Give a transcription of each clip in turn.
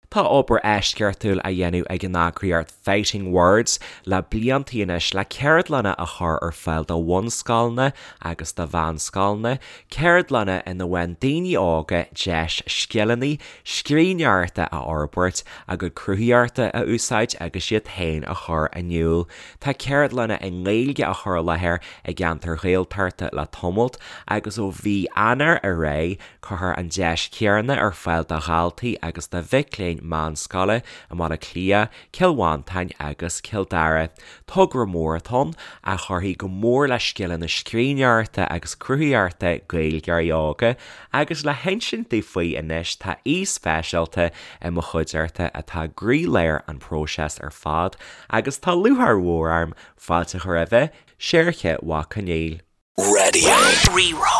Tá obair eisceachtúil á dhéanamh ag an eagraíocht Fighting Words le blianta anois le ceardlanna a chur ar fáil do bhunscoileanna agus do mheánscoileanna, ceardlanna ina bhfaigheann daoine óga deis scileanna scríbhneoireachta a fhorbairt, a gcuid cruthaitheachta a úsáid agus iad féin a chur in iúl. Tá ceardlanna i nGaeilge á chur i láthair i gceantair Ghaeltachta le tamalt agus ó mhí Eanáir ar aghaidh, Cuirfear an deis chéanna ar fáil do dhaltaí agus do mhic léinn meánscoile i mBaile Átha Cliath, Cill Mhantáin agus Cill Dara. Togra mór atá ann, a chuirfidh go mór le scileanna scríbhneoireachta agus cruthaitheachta Gaeilgeoirí óga, agus le hinsint dúinn faoi anois tá aoi speisialta i mo chuideachta atá i gcroílár an phróisis ar fad agus tá lúcháir mhór orm fáilte a chur roimhe, Seoirse Mac Conghail. Raidió Rí-Rá.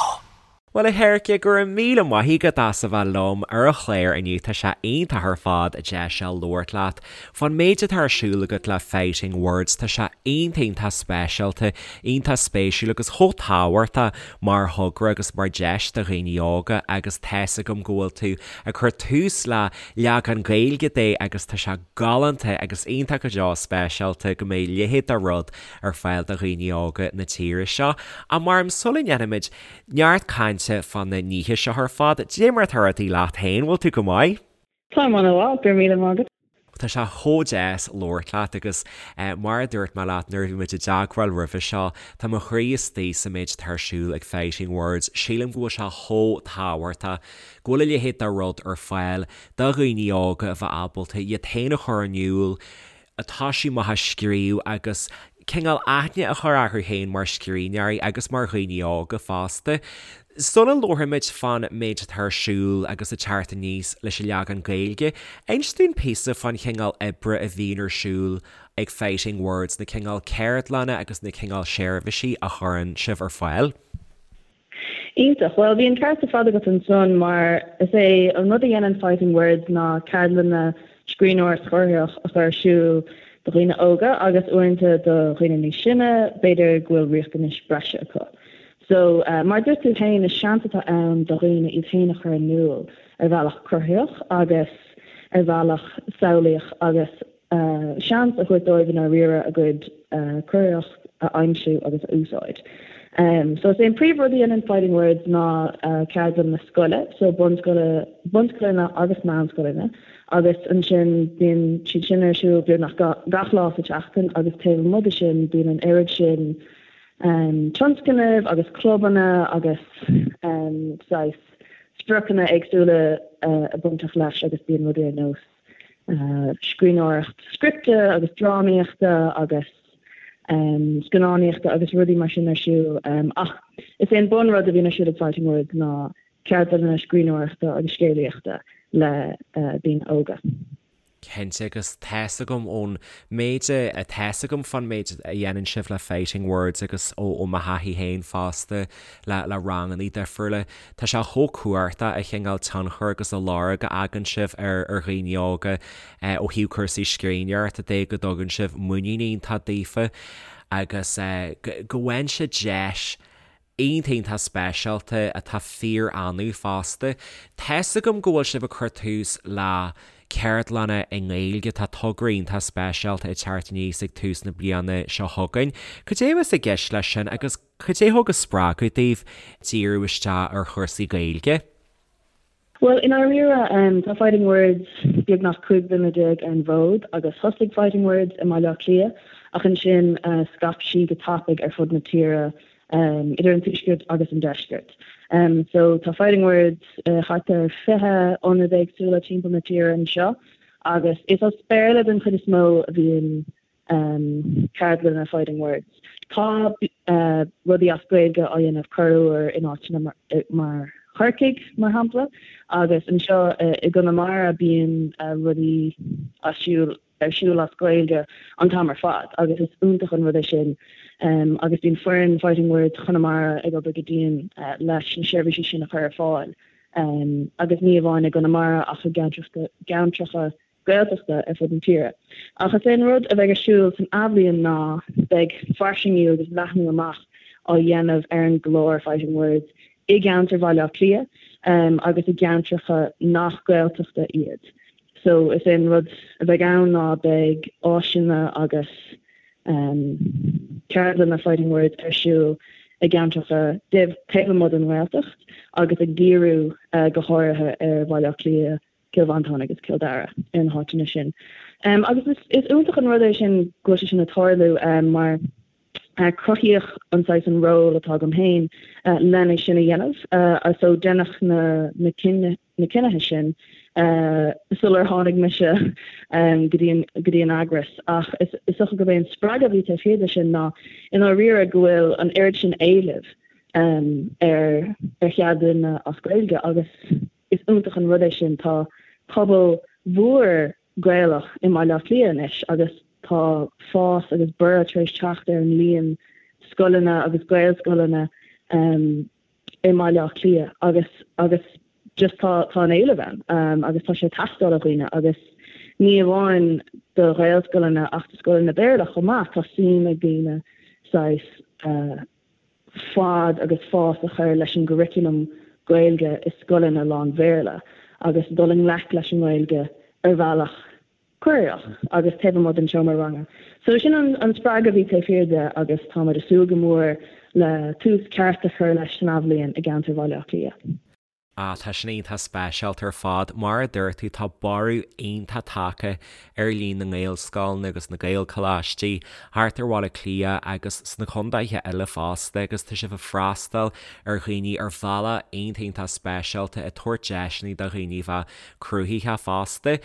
Bhuel a Sheoirse, go raibh míle maith agat as a bheith liom ar an chlár inniu, tá sé iontach ar fad deis a labhairt leat fán méid atá ar siúl agat le Fighting Words, tá sé iontach iontach speisialta, iontach spéisiúil agus chomh tábhachtach mar thogra agus mar deis do dhaoine óga agus tá's agam go bhfuil tú ag cur tús le leagan Gaeilge de agus tá sé galánta agus iontach go deo speisialta go mbeidh a leithéid de rud ar fáil do dhaoine óga na tíre seo. Ach mar sula ndéanfaimid neart cainte fá na nithe seo ar fad, dé mar atá rudaí leat féin, bhfuil tú go maith? Táim an-mhaith, go raibh míle maith agat. Tá sé chomh deas labhairt leat agus mar a dúirt mé leat nuair a bhí muid i dteagmháil roimhe seo, tá mo chroí istigh sa méid atá ar siúl ag Fighting Words. Sílim go bhfuil sé chomh tábhachtach go bhfuil a leithéid de rud ar fáil do dhaoine óga a bheith ábalta iad féin a chur in iúl, atá sí maith ag scríobh agus cineál aithne a chur orthu féin mar scríbhneoirí agus mar dhaoine óga fosta. Sula labhraímid fán méid atá ar siúl agus ag teacht aníos leis an leagan Gaeilge, inis dúinn píosa fán chineál oibre a bhíonn ar siúl ag Fighting Words, na cineál ceardlanna agus na cineál seirbhísí a chuireann sibh ar fáil. Iontach. Bhuel, bhí an ceart ar fad agat ansan mar is é an rud a dhéanann Fighting Words ná ceardlanna scríbhneoireacht chruthaitheach a chur ar siúl do dhaoine óga agus uaireanta do dhaoine níos sine, b'fhéidir go bhfuil riachtanais breise acu. So, mar a dúirt tú féin, is seans atá ann do dhaoine iad féin a chur in iúl ar bhealach cruthaitheach agus ar bhealach samhlaíoch agus seans a thabhairt dóibh i ndáiríre a gcuid cruthaitheacht a aimsiú agus a úsáid. So is é an príomhrud a dhéanann Fighting Words ná ceardlanna scoile, so bunscoile, bunscoileanna agus meánscoileanna agus ansin bíonn siad sin ar siúl beagnach gach lá sa tseachtain agus taobh amuigh de sin bíonn an oiread sin tionscnaimh agus clubanna agus saghas spriocanna éagsúla bainteach leis agus bíonn rudaí ar nós scríbhneoireacht scripte agus drámaíochta agus scannánaíochta agus rudaí mar sin ar siúl. Ach is é an bunrud a bhíonn ar siúl ag Fighting Words ná ceardlanna scríbhneoireachta agus scéalaíochta le daoine óga. Cinnte, agus tá's agam ón méid a, tá's agam fán méid a dhéanann sibh le Fighting Words agus ó mo thaithí féin fosta le le ranganna difriúla, Tá sé chomh cumhachtach an cineál tionchar agus an lorg a fhágann sibh ar ar dhaoine óga ó thaobh cúrsaí scríbhneoireachta de, go dtugann sibh muinín iontach daofa agus go bhfaigheann siad deis iontach iontach speisialta atá fíor-annamh fosta. Tá's agam go bhfuil sibh ag cur tús le ceardlanna i nGaeilge, tá togra iontach speisialta ag teacht aníos ag tús na bliana seo chugainn. Cad é a bheas i gceist leis sin agus Cad é thug an spreagadh daoibh díriú isteach ar chúrsaí Gaeilge? Bhuel, i ndáiríre, tá Fighting Words beagnach 15 bliana ar an bhfód agus thosaigh Fighting Words i mBaile Átha Cliath ach ansin scaip sí go tapaidh ar fud na tíre, idir an tuaisceart agus an deisceart. So tá Fighting Words thart ar 20 ionad éagsúla timpeall na tíre anseo agus is as Béarla den chuid is mó a bhíonn ceardlanna Fighting Words. Tá rudaí as Gaeilge á dhéanamh corruair in áiteanna mar Chorcaigh, mar shampla, agus anseo i gConamara bíonn rudaí as siúl ar siúl as Gaeilge an t-am ar fad agus is iontach an rud é sin agus bíonn foireann Fighting Words Chonamara ag obair go dian leis na seirbhísí sin a chur ar fáil agus ní amháin i gConamara ach i gceantracha Gaeltachta ar fud na tíre. Ach is é an rud a bheidh ar siúl san athbhliain ná beidh fairsingiú agus leathnú amach á dhéanamh ar an gclár Fighting Words i gceantar Bhaile Átha Cliath agus i gceantracha nach Gaeltachta iad. So is é an rud a bheidh ann ná beidh áiseanna agus ceardlanna Fighting Words ar siúl i gceantracha taobh amuigh den nGaeltacht agus ag díriú go háirithe ar Bhaile Átha Cliath, Cill Mhantáin agus Cill Dara, ar na háiteanna sin. Agus is iontach an rud é sin go bhfuil sé sin ag tarlú mar cruthaíodh an saghas an ról atá agam féin lena sin a dhéanamh. So deineadh na na cinnithe sin sular tháinig mise go dtí an go dtí an eagras. Ach is dócha gurb é an spreagadh a bhí taobh thiar de sin ná i ndáiríre go bhfuil an oiread sin éilimh ar ar cheardlanna as Gaeilge agus Is iontach an rud é sin. Tá pobal mhór Gaelach i mBaile Átha Cliath anois agus tá fás agus borradh tar éis teacht ar an líon scoileanna agus Gaelscoileanna i mBaile Átha Cliath agus agus just tá tá an éileamh ann agus tá sé ag teastáil ó dhaoine agus ní amháin do Ghaelscoileanna ach do scoileanna Béarla chomh maith. Tá suim ag daoine saghas fad agus fás a chur leis an gcurriculum Gaeilge i scoileanna lán-Bhéarla agus dul i ngleic leis an nGaeilge ar bhealach cruthaitheach agus taobh amuigh den seomra ranga. So sin an spreagadh a bhí taobh thiar de agus táimid ag súil go mór le tús ceart a chur leis san athbhliain i gceantar Bhaile Átha Cliath. Ah, tá sin iontach speisialta ar fad. Mar a dúirt tú, tá borradh iontach tagtha ar líon na nGaelscoileanna agus na Gaelcholáistí thart ar Bhaile Átha Cliath agus sna contaetha eile fosta agus tá sibh ag freastal ar dhaoine ar bhealach iontach iontach speisialta, ag tabhairt deiseanna do dhaoine a bheith cruthaitheach fosta.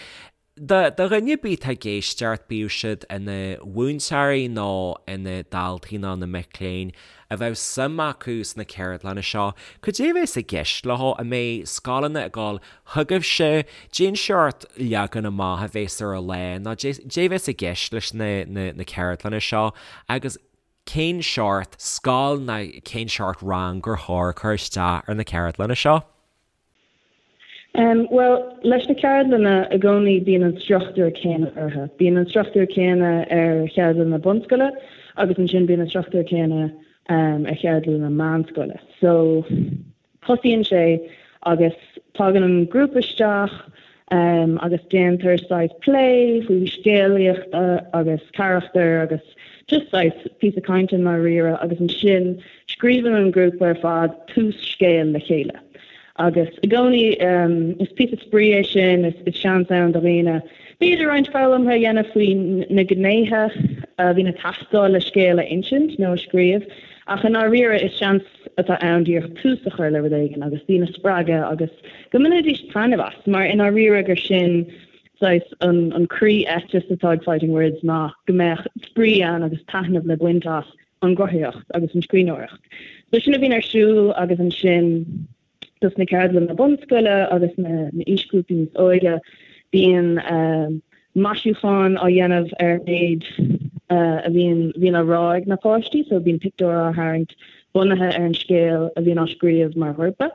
Do dhuine ar bith atá ag éisteacht, bíodh siad ina mhúinteoirí nó ina ndaltaí nó ina mic léinn, a bheadh suim acu sna ceardlanna seo, cad é a bheas i gceist leo? An mbeidh scoileanna ag dul chugaibhse? Cén seort leagan amach a bheas ar an lá nó cad é a bheas i gceist leis na ceardlanna seo agus cén seort scoil nó cén seort rang gur chóir cur isteach ar na ceardlanna seo? Bhuel, leis na ceardlanna, i gcónaí bíonn an struchtúr céanna orthu. Bíonn an struchtúr céanna ar cheardlanna bunscoile agus ansin bíonn an struchtúr céanna ar cheardlanna meánscoile. So, tosaíonn sé agus tagann an grúpa isteach agus déantar saghas plé faoi scéalaíocht agus carachtair agus just saghas píosa cainte i ndáiríre agus ansin scríobhann an grúpa ar fad tús scéil le chéile. Agus i gcónaí is píosa spraoi é sin, is seans ann do dhaoine b'fhéidir roinnt foghlamtha a dhéanamh faoi na gnéithe a bhíonn ag teastáil le scéal a insint nó a scríobh, ach i ndáiríre is seans atá ann díreach tús a chur le rud éigin agus daoine a spreagadh agus go mbainfidís taitneamh as, mar i ndáiríre gur sin saghas an croí-eiteas atá ag Fighting Words ná go mbeadh spraoi ann agus taitneamh le baint as an gcruthaitheacht agus an scríbhneoireacht. So sin a bhíonn ar siúl agus ansin dos na ceardlanna bunscoile agus na aoisghrúpaí níos óige bíonn maisiúchán á dhéanamh ar an méid a bhíonn bhíonn á rá ag na páistí so bíonn pictiúr á tharraingt bunaithe ar an scéal a bhíonn á scríobh mar ghrúpa.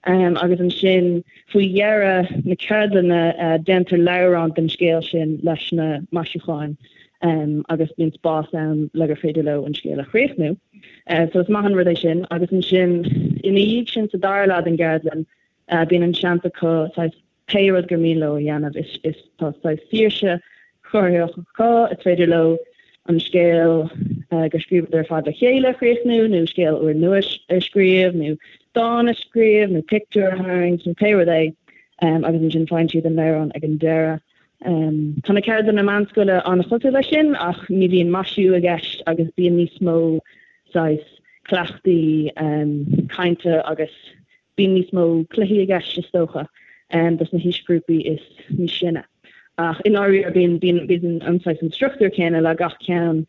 Agus ansin faoi dheireadh na ceardlainne déantar leabhrán den scéal sin leis na maisiúcháin agus bíonn spás ann le gur féidir leo an scéal a chríochnú. So is maith an rud é sin. Agus ansin ina dhiaidh sin sa dara leath den gceardlann bíonn an seans acu saghas pé rud gur mian leo a dhéanamh. Is is tá saghas saoirse chruthaitheach acu, is féidir leo an scéal gur scríobhadar ar fad le chéile a chríochnú nó scéal úrnua a scríobh nó dán a scríobh nó pictiúr a tharraingt nó pé rud é agus ansin faigheann siad an leabhrán ag an deireadh. Tá na ceardlanna meánscoile an-chosúil leis sin ach ní bhíonn maisiú i gceist agus bíonn níos mó saghas cleachtaí cainte agus bíonn níos mó cluichí i gceist is dócha dos na haoisghrúpaí is níos sine. Ach i ndáiríre bíonn bíonn bíonn an saghas an struchtúr céanna le gach ceann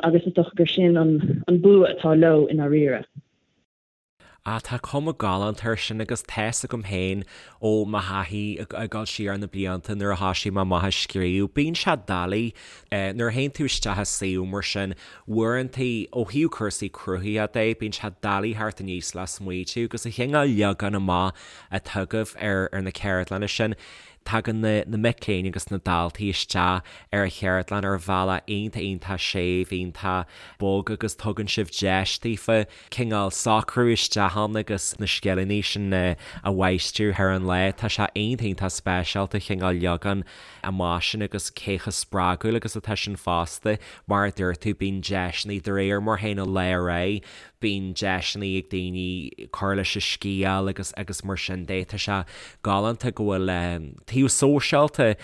agus is dócha gur sin an bua atá leo i ndáiríre. Ah, tá cuma galánta air sin agus tá's agam féin ó mo thaithí ag dul siar na blianta nuair a thoisigh mé amach ag scríobh, bíonn sé doiligh nuair a théann tú isteach i suíomh mar sin, uaireantaí ó thaobh cúrsaí cruthaitheachta de, bíonn sé doiligh theacht aníos le smaoitiú agus an cineál leagan amach atá agaibh ar na ceardlanna sin. Tagann na na mic léinn agus na daltaí isteach ar an cheardlann ar bhealach iontach iontach séimh, iontach bog agus tugann sibh deis daofa cineál socrú isteach ann agus na scileanna sin a mháistriú thar an lá. Tá sé iontach iontach speisialta cineál leagan amach sin agus cé chomh spreagúil agus atá sin fosta. Mar a dúirt tú, bíonn deiseanna de réir mar a théann an lá ar aghaidh, bíonn deiseanna ag daoine cur leis an scéal agus agus mar sin de. Tá sé galánta go bhfuil taobh sóisialta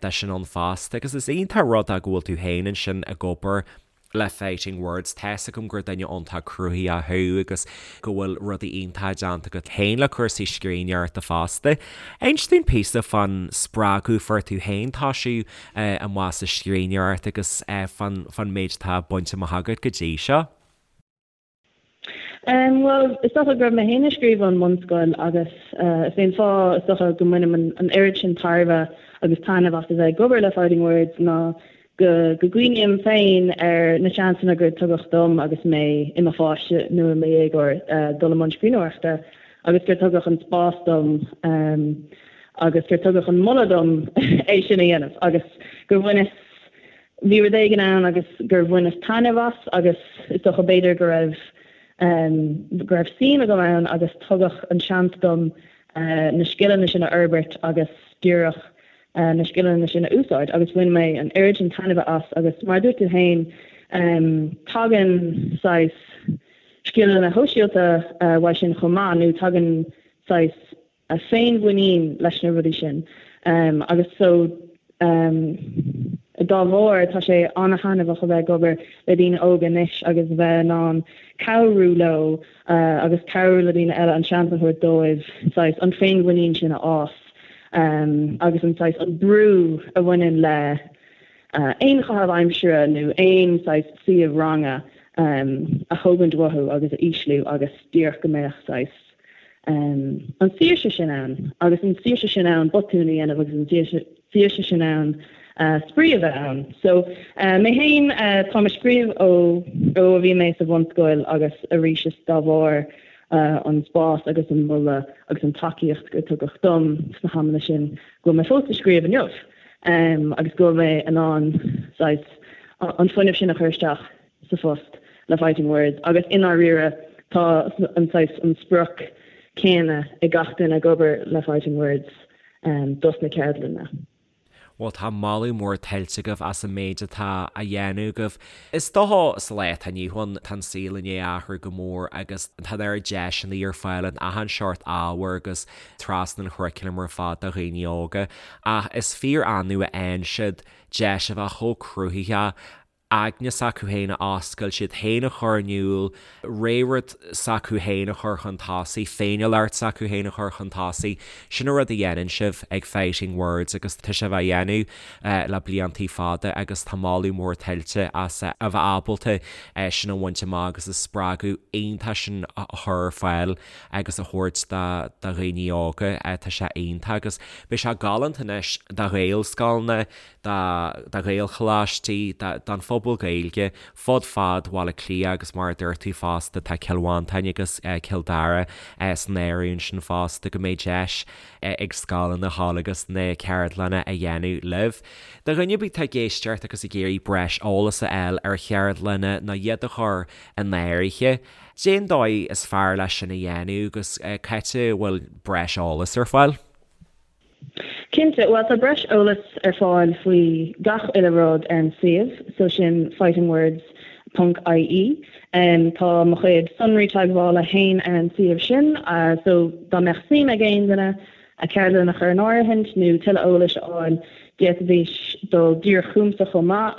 de sin ann fosta agus is iontach rud é go bhfuil tú féin ansin ag obair le Fighting Words. Tá's agam gur duine iontach cruthaitheach thú agus go bhfuil rudaí iontacha déanta agat féin le cúrsaí scríbhneoireachta fosta. Inis dúinn píosa fán spreagadh a fuair tú féin toisiú amach sa scríbhneoireacht agus fán fán méid atá bainte amach agat go dtí seo. Bhuel, is dócha go raibh mé féin ag scríobh ón mbunscoil agus is é an fáth is dócha go mbainim an oiread sin tairbhe agus taitneamh as a bheith ag obair le Fighting Words ná go go gcuimhním féin ar na seansanna gur tugadh dom agus mé i mo pháiste nó i mo dhéagóir dul i mbun scríbhneoireachta agus gur tugadh an spás dom agus gur tugadh an moladh dom é sin a dhéanamh agus gur bhaineas Bhí rud éigin ann agus gur bhaineas taitneamh as agus is dócha b'fhéidir go raibh go raibh suim agam ann agus tugadh an seans dom na scileanna sin a fhorbairt agus díreach na scileanna sin a úsáid agus bhain mé an oiread sin taitnimhe as agus mar a dúirt tú féin tagann saghas scileanna shóisialta uaidh sin chomh maith nó tagann saghas féinmhuinín leis na rudaí sin agus so dá bharr tá sé an-thaitneamhach a bheith ag obair le daoine óga anois agus a bheith in ann cabhrú leo agus cabhrú le daoine eile an seans a thabhairt dóibh saghas an féinmhuinín sin a fhás agus an saghas an brú a bhaineann le aon chaitheamh aimsire nó aon saghas suíomh ranga a thógaint uathu agus a ísliú agus díreach go mbeadh saghas an tsaoirse sin ann agus an tsaoirse sin ann botúin a dhéanamh agus an tsaoirse sin ann spraoi a bheith ann. So mé féin, táim ag scríobh ó ó a bhí mé sa bhunscoil agus arís is dá bharr an spás agus an moladh agus an tacaíocht gur tugadh dom sna hamanna sin go bhfuil mé fós ag scríobh inniu agus go bhfuil mé in ann saghas an fuinneamh sin a chur isteach sa phost le Fighting Words agus i ndáiríre tá an saghas, an sprioc céanna ag gach duine ag obair le Fighting Words dos na ceardlanna. Bhuel tá moladh mór tuillte agaibh as an méid atá á dhéanamh agaibh. Is dócha sa lá atá inniu ann tá an saol i ndiaidh athrú go mór agus tá an oiread deiseanna ar fáil in achan seort ábhair agus trasna an churaclaim ar fad do dhaoine óga ach is fíor annamh a fhaigheann siad deis a bheith chomh cruthaitheach aigne s'acu féin a oscailt, iad féin a chur in iúl, ré-rud s'acu féin a chur chun tosaigh, féiniúlacht s'acu féin a chur chun tosaigh. Sin an rud a dhéanann sibh ag Fighting Words agus tá sibh á dhéanamh le bliantaí fada agus tá moladh mór tuillte as a bheith ábalta sin a bhaint amach agus an spreagadh iontach sin a chur ar fáil agus a thabhairt do dhaoine óga. Tá sé iontach agus beidh sé galánta anois do Ghaelscoileanna, do Ghaelcholáistí, don phobal Gaeilge fud fad Bhaile Átha Cliath agus mar a dúirt tú fosta tá Cill Mhantáin agus Cill Dara san áireamh ansin fosta go mbeidh deis ag scoileanna a ghabháil agus na ceardlanna a dhéanamh libh. Do dhuine ar bith atá ag éisteacht agus ag iarraidh breis eolas a fháil ar cheardlanna nó iad a chur in áirithe, cén dóigh is fearr leis sin a dhéanamh agus cá háit a bhfuil breis eolais ar fáil? Cinnte, bhuel tá breis eolais ar fáil faoi gach uile rud ar an suíomh, so sin fightingwords ponc ie. Tá mo chuid sonraí teagmhála fhéin ar an suíomh sin, so dá mbeadh suim ag aon duine ceardlann a chur in áirithint nó tuilleadh eolais a fháil, d'fhéadfaidís dul díreach chugamsa chomh maith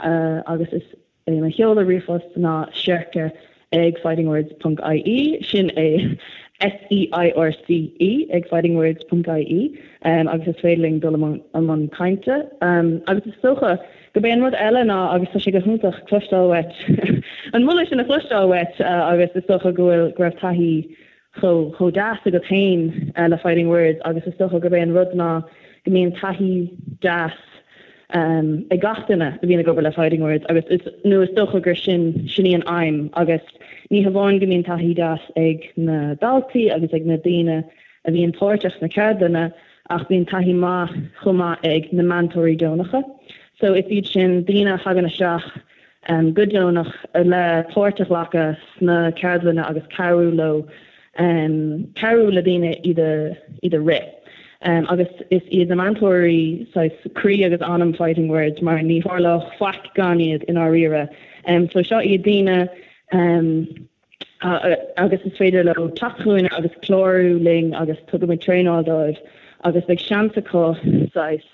agus is É mo sheoladh ríomhphost ná seirce ag fightingwords ponc ie, sin é S-E-I-R-C-E ag fightingwords ponc ie, agus is féidir linn dul i mbun cainte. Agus is dócha gurb é an rud eile ná, agus tá sé go hiontach cloisteáil uait, an moladh sin a chloisteáil uait agus is dócha go bhfuil, go raibh taithí chomh chomh deas agat féin le Fighting Words agus is dócha gurb é an rud ná go mbíonn taithí deas ag gach duine a bhíonn ag obair le Fighting Words agus is nó is dócha gur sin sin í an aidhm agus ní hamháin go mbíonn taithí deas ag na daltaí agus ag na daoine a bhíonn páirteach sna ceardlanna. Ach bíonn taithí maith chomh maith ag na meantóirí deonacha. So is iad sin daoine a thagann isteach go deonach le páirt a ghlacadh sna ceardlanna agus cabhrú leo, cabhrú le daoine iad a iad a rith. Agus is iad na meantóirí saghas croí agus anam Fighting Words mar ní tharlódh faic gan iad i ndáiríre. So seo iad daoine agus is féidir leo teacht chugainn agus clárú linn agus tugaimid traenáil dóibh agus beidh seans acu saghas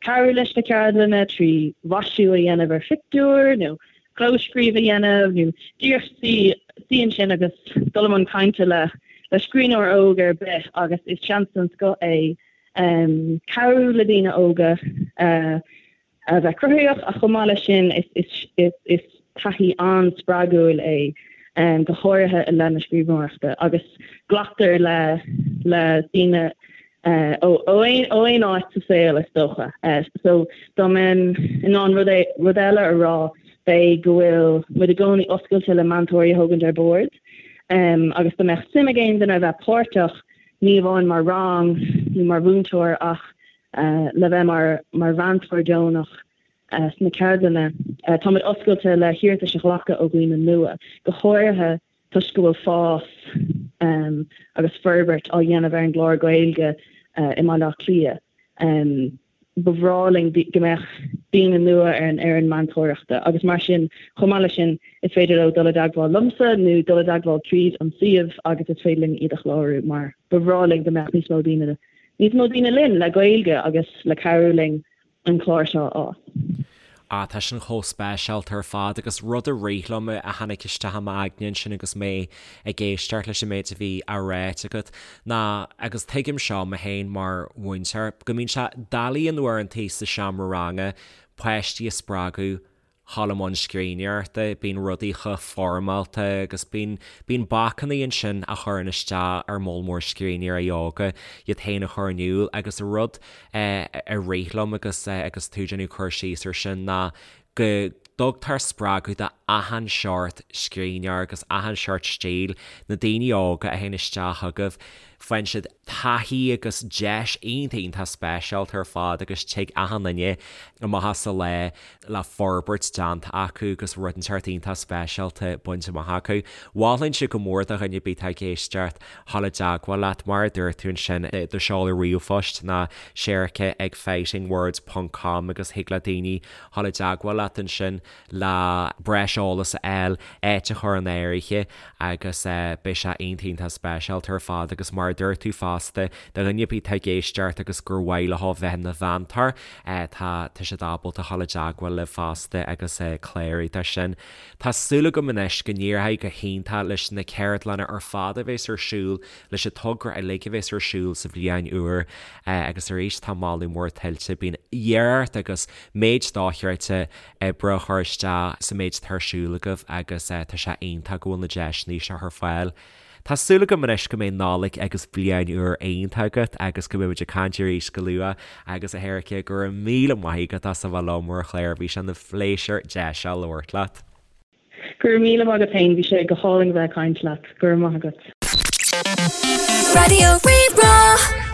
cabhrú leis na ceardlanna trí mhaisiú a dhéanamh ar phictiúr nó clóscríobh a dhéanamh nó díreach suí suí ansin agus dul i mbun cainte le le scríbhneoir óg ar bith agus is seans den scoth é cabhrú le daoine óga a bheith cruthaitheach ach chomh maith leis sin is taithí an-spreagúil é go háirithe i leith na scríbhneoireachta agus glactar le le daoine ó aon áit sa saol is dócha. So dá mbeinn in ann rud rud eile a rá b'é go bhfuil muid i gcónaí oscailte le meantóirí a thógaint ar bord agus dá mbeadh suim ag aon duine a bheith páirteach ní amháin mar rang nó mar mhúinteoir ach le bheith mar mar mheantóir deonach sna ceardlanna. Táimid oscailte le hiarratais a ghlacadh ó dhaoine nua, go háirithe toisc go bhfuil fás agus forbairt á dhéanamh ar an gclár Gaeilge i mBaile Átha Cliath. Ba bhreá linn go mbeadh daoine nua ar an fhoireann meantóireachta agus mar sin, chomh maith leis sin, is féidir leo dul i dteagmháil liomsa nó dul i dteagmháil tríd an suíomh agus is féidir linn iad a chlárú mar ba bhreá linn go mbeadh níos mó daoine níos mó daoine linn le Gaeilge agus le cabhrú linn an clár seo a fhás. Ah, tá sin chomh speisialta ar fad agus rud a rith liom a tháinig isteach i m'aigne ansin agus mé ag éisteacht leis an méid a bhí á ráit agat ná, agus tuigim seo mé féin mar mhúinteoir, go mbíonn sé doiligh in uaireantaí sa seomra ranga páistí a spreagadh dhul i mbun scríbhneoireachta, bíonn rudaí chomh foirmeálta agus bíonn, bíonn bacanna ansin a chuireann isteach ar moll mór scríbhneoirí óga iad féin a chur in iúl agus rud a rith liom agus agus tú ag déanamh cur síos ar sin ná go dtugtar spreagadh do achan seort scríbhneoir agus achan seort stíl, na daoine óga a théann isteach chugaibh, faigheann siad taithí agus deis iontach iontach speisialta ar fad agus tig achan duine amach as an lá le forbairt déanta acu agus rud inteacht iontach speisialta bainte amach acu. Mholfainnse go mór do dhuine ar bith atá ag éisteacht dhul i dteagmháil leat, mar a dúirt tú ansin, do sheoladh ríomhphoist ná Sherica ag fightingwords ponc com agus thig le daoine dhul i dteagmháil leat ansin le breis eolas a fháil, áit a chur in áirithe agus beidh sé iontach iontach speisialta ar fad agus mar a dúirt tú fosta, do dhuine ar bith atá ag éisteacht agus gur mhaith leo bheith ina mheantóir, tá tá siad ábalta dhul i dteagmháil libh fosta agus clárú dó sin. Tá súil agam anois go n-éireoidh go hiontach leis na ceardlanna ar fad a bheas ar siúl, leis an togra uilig a bheas ar siúl sa bhliain úr agus arís tá moladh mór tuillte. Bíonn iarracht agus méid dochreidte oibre á chur isteach sa méid atá ar siúl agaibh agus tá sé iontach go bhfuil na deiseanna seo ar fáil. Tá súil agam anois go mbeidh Nollaig agus Bliain Úr iontach agat agus go mbeidh muid ag caint arís go luath agus a Sherica go raibh míle maith agat as a bheith liom ar an chlár, bhí sé ina phléisiúr deis a labhairt leat. Go raibh míle maith agat féin, bhí sé go hálainn a bheith ag caint leat, go raibh maith agat. Raidió Rí-Rá.